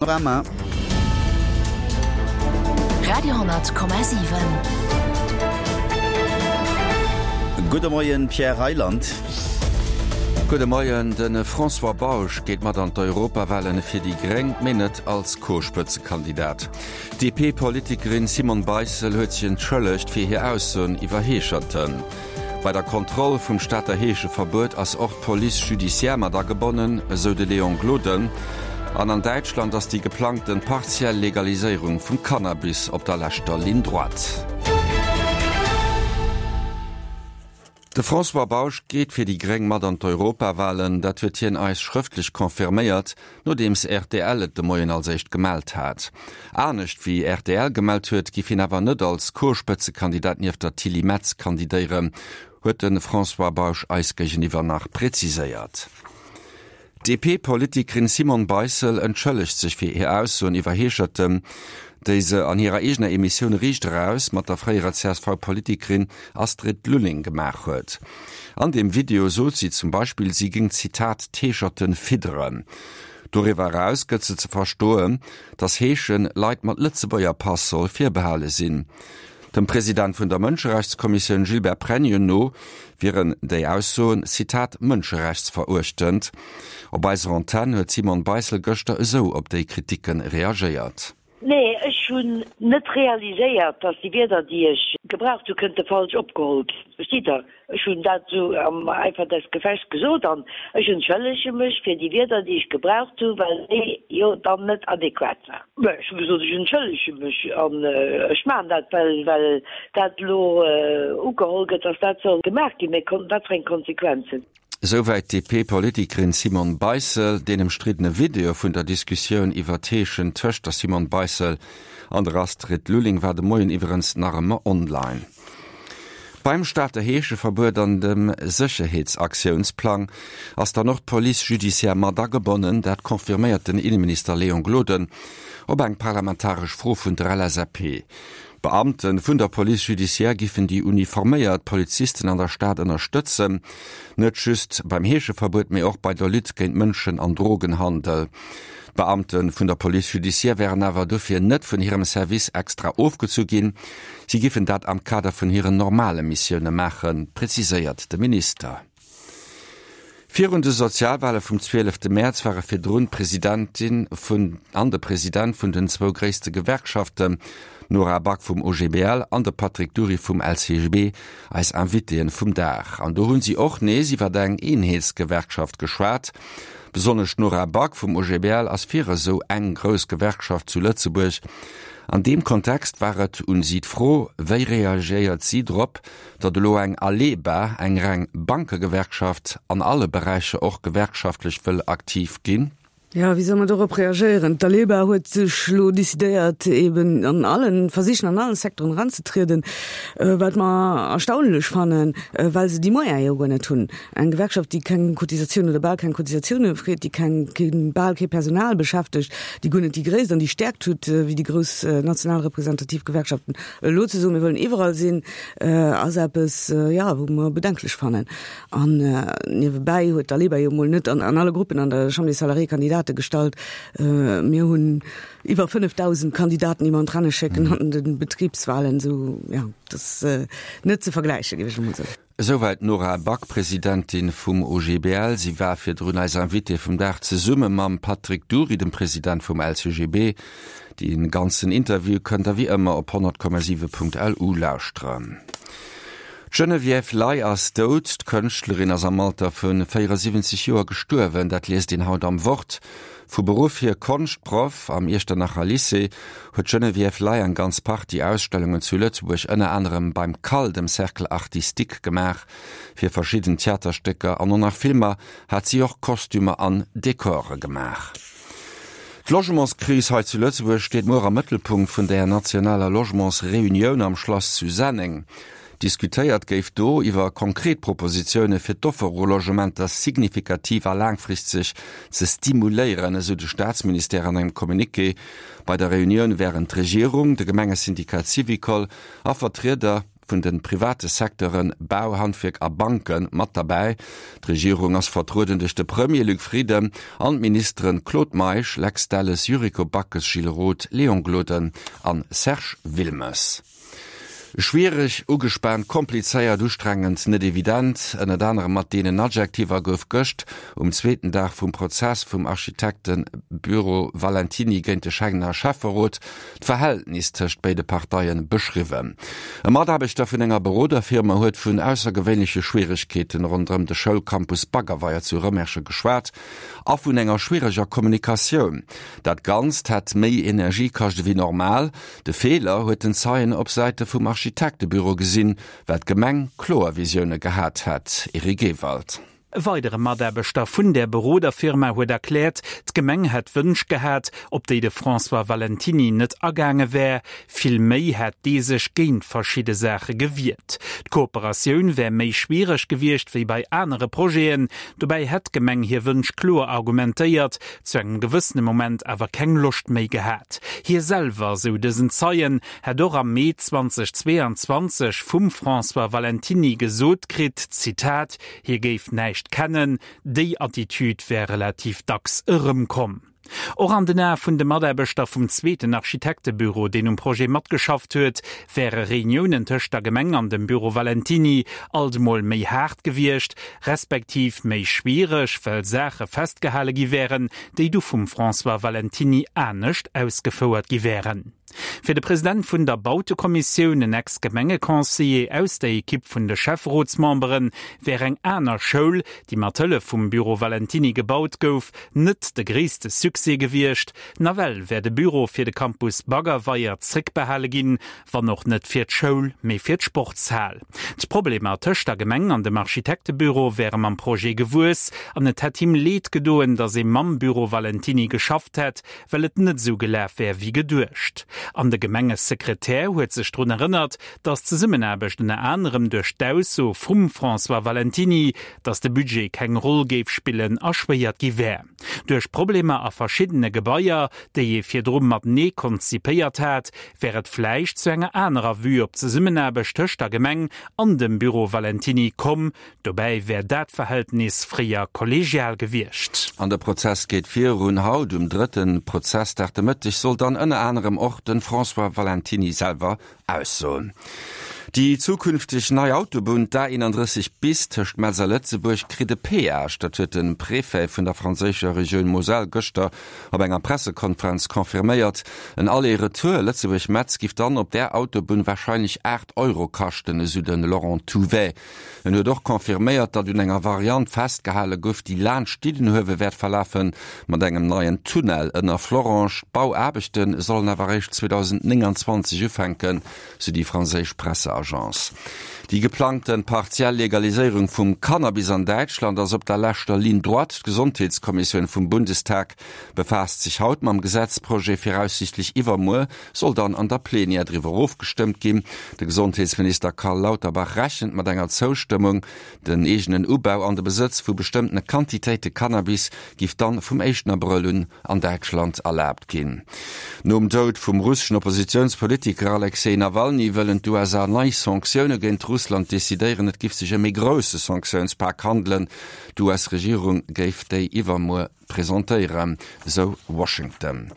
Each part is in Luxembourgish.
Panorama. Radio,7. Gudde Moien, Pierre Reyland. Gudde Moien. De François Bausch geet mat an d'Europawahlen fir déi Gréng, mee net als Co-Spëtzekandidat. D'DP-Politikerin Simone Beissel huet sech entschëllegt fir hir Aussoen iwwer Heescherten. Bei der Kontroll vum Stater Heescheverbuet ass och d'Police judiciaire mat agebonnen, esou de Léon Gloden. An an Däitschland ass déi geplangten partiell Legaliséierung vum Cannabis op der leschter Ligne droite. De François Bausch geet fir déi gréng mat an d'Europawalen. Dat huet hien eis schrëftlech confirméiert, nodeems rtl et de Moien als éischt gemellt hat. Anescht wéi rtl gemellt huet, giff hien awer net als Co-Spëtzekandidat nieft der Tilly Metz kandidéieren, huet de François Bausch eis géigeniwwer nach präziséiert. D'DP-Politikerin Simone Beissel entschëllegt sech fir hir Aussoen iwwer Heescherten, déi se an hirer eegener Emissioun Riicht Eraus mat der fréierer CSV-Politikerin Astrid Lulling gemaach huet. An deem Video sot si zum Beispill, si géing, Zitat, d'Heescherten fidderen. Doriwwer eraus gëtt se ze verstoen, datt Heeschen Leit mat Lëtzebuerger Pass soll virbehale sinn. Dem President vun der Mënscherechtskommissioun Gilbert Pregno no wieren déi Aussoen, Zitat, mënscherechtsveruechtend. Op eiser Antenn huet d'Simone Beissel gëschter esou op déi Kritikke reagéiert. Nee, ech hunn net realiséiert, dass déi Wierder, déi ech gebraucht hu, kënnte falsch opgeholl ginn. Verstitt Der? Ech hunn dat esou am Eifer des Gefechts gesot an ech entschëllege mech fir déi Wierder, déi ech gebraucht hunn, well déi jo dann net adequat waren. Mä ech hu gesot, ech entschëllege mech an ech maachen dat, well well dat elo ugeholl gëtt, dass dat soll gemaach ginn. Mä wat fir eng Konsequenzen? Esouwäit d'DP-Politikerin Simone Beissel. Deen ëmstriddene Video vun der Diskussioun iwwer d'Heeschen tëscht der Simone Beissel an der Astrid Lulling war de Moien iwwerens nach ëmmer online. Beim Stater Heescheverbuet an dem Sécherheetsaktiounsplang ass dann och d'Police judiciaire mat agebonnen. Dat confirméiert den Inneminister Léon Gloden op eng parlamentaresch Fro vun der LSAP. D'Beamte vun der Police judiciaire giffen déi uniforméiert Polizisten an der Stad ënnerstëtzen, net just beim Heescheverbuet, mee och bei der Lutte géint Mënschen an Drogenhandel. D'Beamte vun der Police judiciaire wären awer dofir net vun hirem Service extra ofgezu ginn, si giffen dat am Kader vun hiren normale Missioune maachen, preziséiert de Minister. Virun de Sozialwale vum 12 Mäerz ware virdrun d'Presidentin vun an de President vun den zwou gréisste Gewerkschaften, d'Nora Back vum OGBL an de Patrick Dury vum LCGB, eis Invitéen vum Dag. An do hunn si och nees iwwer eng Eenheetsgewerkschaft geschwat. Besonnesch d'Nora Back vum OGBL ass fir esou eng grouss Gewerkschaft zu Lëtzebuerg. An deem Kontext war et un si d'Fro, wéi reagéiert si drop, datt elo eng Aleba, eng reng Bankegewerkschaft, an alle Beräicher och gewerkschaftlech wëll aktiv ginn? Jo, wéi soll mer dorop reagéieren? D'Aleba huet sech elo decidéiert, eben an allen, versichen an allen Secteuren eranzetrieden, wat mer erstaunlech fannen, well se déi Moyene jo guer net hunn. Eng Gewerkschaft, déi keng Cotisatioun oder bal keng Cotisatioune freet, déi keng, keen, bal kee Personal beschäftegt, déi guer net déi Gréisst an déi Stäerkt huet wéi déi grouss national representativ Gewerkschaften, elo ze soen, mir wëllen iwwerall sinn, ass eppes, jo, wou mer bedenklech fannen. An niewebäi huet d'Aleba jo emol net an alle Gruppen an der Chambre des Salariés Kandidate gestallt. Mir hunn iwwer 5.000 Kandidaten, déi mer an d'Renne schécken an de Betribswahlen. Esou, jo, dat ass net ze vergläichen, géif ech emol soen. Esouwäit d'Nora Back, Presidentin vum OGBL. Si war virdrun eis Invitée vum Dag zesumme mam Patrick Dury, dem President vum LCGB. Dee ganzen Interview kënnt der wéi ëmmer op 100,7.lu lauschteren. D'Geneviève Ley ass dout. D'Kënschtlerin ass am Alter vu 74 Joer gestuerwen. Dat liest een haut am Wort. Vu Beruff hier Konschtproff am Iechternacher Lycée, huet d'Geneviève Ley eng ganz Partie Ausstellungen zu Lëtzebuerg, ënner anerem beim CAL, dem Cercle Artistique, gemaach. Fir verschidden Theaterstécker an och nach Filmer hat si och Kostümer an Dekore gemaach. D'Logementskris hei zu Lëtzebuerg steet muer am Mëttelpunkt vun der nationaler Logementsreunioun am Schlass zu Senneng. Diskutéiert géif do iwwer konkret Propositioune fir d'Offer u Logementer signifikativ a laangfristeg ze stimuléieren, esou de Staatsministère an engem Communiqué. Bei der Reunioun wären d'Regierung, de Gemengesyndikat Syvicol a Vertrieder. vun de private Secteuren Bau, Handwierk a Banke mat derbäi. D'Regierung ass vertrueden duerch de Premier Luc Frieden an d'Ministeren Claude Meisch, Lex Delles, Yuriko Backes, Gilles Roth, Léon Gloden an Serge Wilmes. Schwiereg, ugespaant, komplizéiert, ustrengend, net evident, ënnert anerem mat deenen Adjektiver gouf gëscht um zweeten Dag vum Prozess vum Architektebüro Valentiny géint de Schengener Schäfferot d'Verhältnis tëscht béide Parteie beschriwwen. E Mataarbechter vun enger Beroderfirma huet vun aussergewéinleche Schwieregkeeten ronderëm de Schoulcampus Baggerweier zu Rëmersche geschwat a vun enger schwiereger Kommunikatioun. Dat Ganzt hätt méi Energie kascht ewéi normal. De Feeler huet den Zeien op Säite vum Architektebüro gesinn, well d'Gemeng kloer Visioune gehat hätt. Eric Ewald. E weidere Mataarbechter vun där Beroderfirma huet erkläert, d'Gemeng hätt Wënsch gehat, op déi de François Valentiny net agaange wär. Vill méi hätt dee sech géint verschidde Saache gewiert. D'Kooperatioun wär méi schwiereg gewiescht wéi bei anere Projeten. Dobäi hätt d'Gemeng hir Wënsch kloer argumentéiert, zu engem gewëssene Moment awer keng Loscht méi gehat. Hie selwer, sou dësen Zeien, hätt och am Mee 2022 vum François Valentiny gesot kritt, Zitat, Hie géif näischt kennen. Déi Attitüd wär relativ dacks erëmkomm. Och an den Ae vun de Mataarbechter vum zweeten Architektebüro, deen um Projet matgeschafft huet, wäre Reuniounen tëscht der Gemeng an dem Büro Valentiny alt emol méi haart gewiescht, respektiv méi schwiereg, well Saache festgehale gi wären, déi du vum François Valentiny anescht ausgefouert gi wären. Fir de President vun der Bautekommissioun, en Ex-Gemengeconseiller aus der Ekipp vun de Schäfferotsmemberen, wär eng aner Schoul, déi mat Hëllef vum Büro Valentiny gebaut gouf, net de gréisste Succès gewiescht. Nawell wär de Büro fir de Campus Baggerweier zréckbehale ginn, wann och net fir d'Schoul, mee fir d'Sportshal. D'Problemer tëscht der Gemeng an dem Architektebüro wäre mam Projet gewuess an et hätt him Leed gedoen, datt ee mam Büro Valentiny geschafft hätt, well et net esou gelaf wär wéi geduecht. An de Gemengesekretär huet sech drun erënnert, datt d'Zesummenaarbecht ënner anerem duerch d'Ausso vum François Valentiny, datt de Budget keng Roll géif spillen, erschwéiert gi wär. Duerch Problemer a verschiddene Gebaier, déi ee virdru matenee konzipéiert hat, wär et vläicht zu enger anerer Vue op d'Zesummenaarbecht tëscht der Gemeng an dem Büro Valentiny komm, Dobäi wär dat Verhältnis fréier kollegial gewiescht. An de Prozess geet virun. Haut um drëtte Prozessdag de Mëtteg soll dann ënner anerem och de François Valentiny selwer aussoen. Déi zukünfteg nei Autobunn, d'A31 bis tëscht Metz a Lëtzebuerg, kritt e Peage. Dat huet de Préfet vun der franséischer Regioun Moselle gëschter op enger Pressekonferenz confirméiert. En Aller-Retour Lëtzebuerg-Metz giff dann op där Autobunn warscheinlech 8 Euro kaschten, esou de Laurent Touvet. En huet och confirméiert, datt un enger Variant festgehale gouf, déi laanscht Diddenhuewe wäert verlafen, mat engem neien Tunnel ënner Florange. D'Bauaarbechte sollen awer eréischt 2029 ufänken, sou déi franséisch Presseagence. Déi geplangte partiell Legaliséierung vum Cannabis an Däitschland ass op der leschter Ligne droite. D'Gesondheetskommissioun vum Bundestag befaasst sech haut mam Gesetzprojet. Viraussiichtlech iwwermuer soll dann an der Plenière driwwer ofgestëmmt ginn. De Gesondheetsminister Karl Lauterbach rechent mat enger Zoustëmmung. Den eegenen Ubau an de Besëtz vu bestëmmtene Quantitéite Cannabis giff dann vum éischten Abrëll un an Däitschland erlaabt ginn. Nom Doud vum russeschen Oppositiounspolitiker Alexej Nawalny wëllen d'USA nei Sanktioune géint Russland decidéieren. Et giff sech ëm ee grousse Sanktiounspak handelen. D'US-Regierung géif déi iwwermuer presentéieren, sou Washington.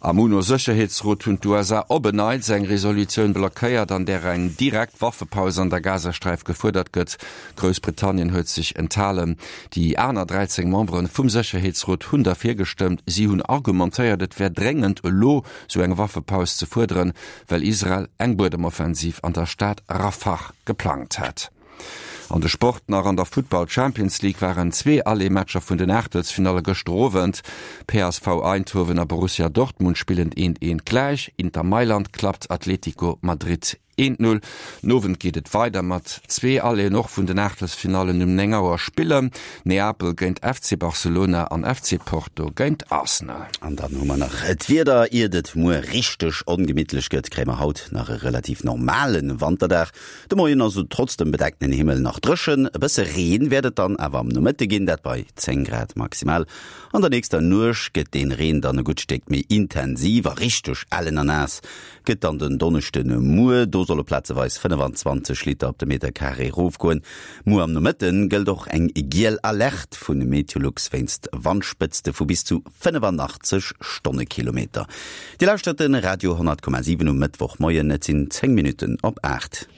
Am UNO-Sécherheetsrot hunn d'USA op en Neits eng Resolutioun blockéiert, an där eng direkt Waffepaus an der Gazasträif gefuerdert gëtt. Groussbritannien huet sech enthalen. Déi aner 13 Membere vum Sécherheetsrot hunn derfir gestëmmt. Si hunn argumentéiert, et wär dréngend, elo sou eng Waffepaus ze fuerderen, well Israel eng Buedemoffensiv an der Stad Rafah geplangt hätt. An de Sport nach, An der Futtball Champions League waren zwee Aller-Matcher vun den Aachtelsfinalle gëschter Owend. PSV Eindhoven a Borussia Dortmund spillen eent eent gläich, Inter Mailand klappt Atletico Madrid eent Null. Den Owend geet et weider mat zwee Alléen och vun den Aachtelsfinallen. Um 9 Auer spillen Neapel géint FC Barcelona an FC Porto géint Arsenal. An dann hu mer nach d'Wieder, Iert et muer richteg ongemittlech gëtt, kréie mer haut nach e relativ normale Wanterdag. De Moien ass et trotz dem bedeckten Himmel nach dréchen, e bësse Reen wäert et dann awer am Nomëtte ginn, dat bei 10 Grad maximal. An der nächster Nuecht gëtt deen Reen dann e gutt Stéck méi intensiv a richteg ellen a naass gëtt dann den Donneschden Muer. Do. Do solle plazeweis 25 Liter op de Meterkaree erofgoen. Muer am Nomëtte gëllt och eng giel Alerte vu Meteolux wéinst Wandspëtzte vu bis zu 85 Stonnekilometer. Dir lauschtert de Radio 10,7 um Mëttwochmoien. Et sinn 10 Minutten op 8.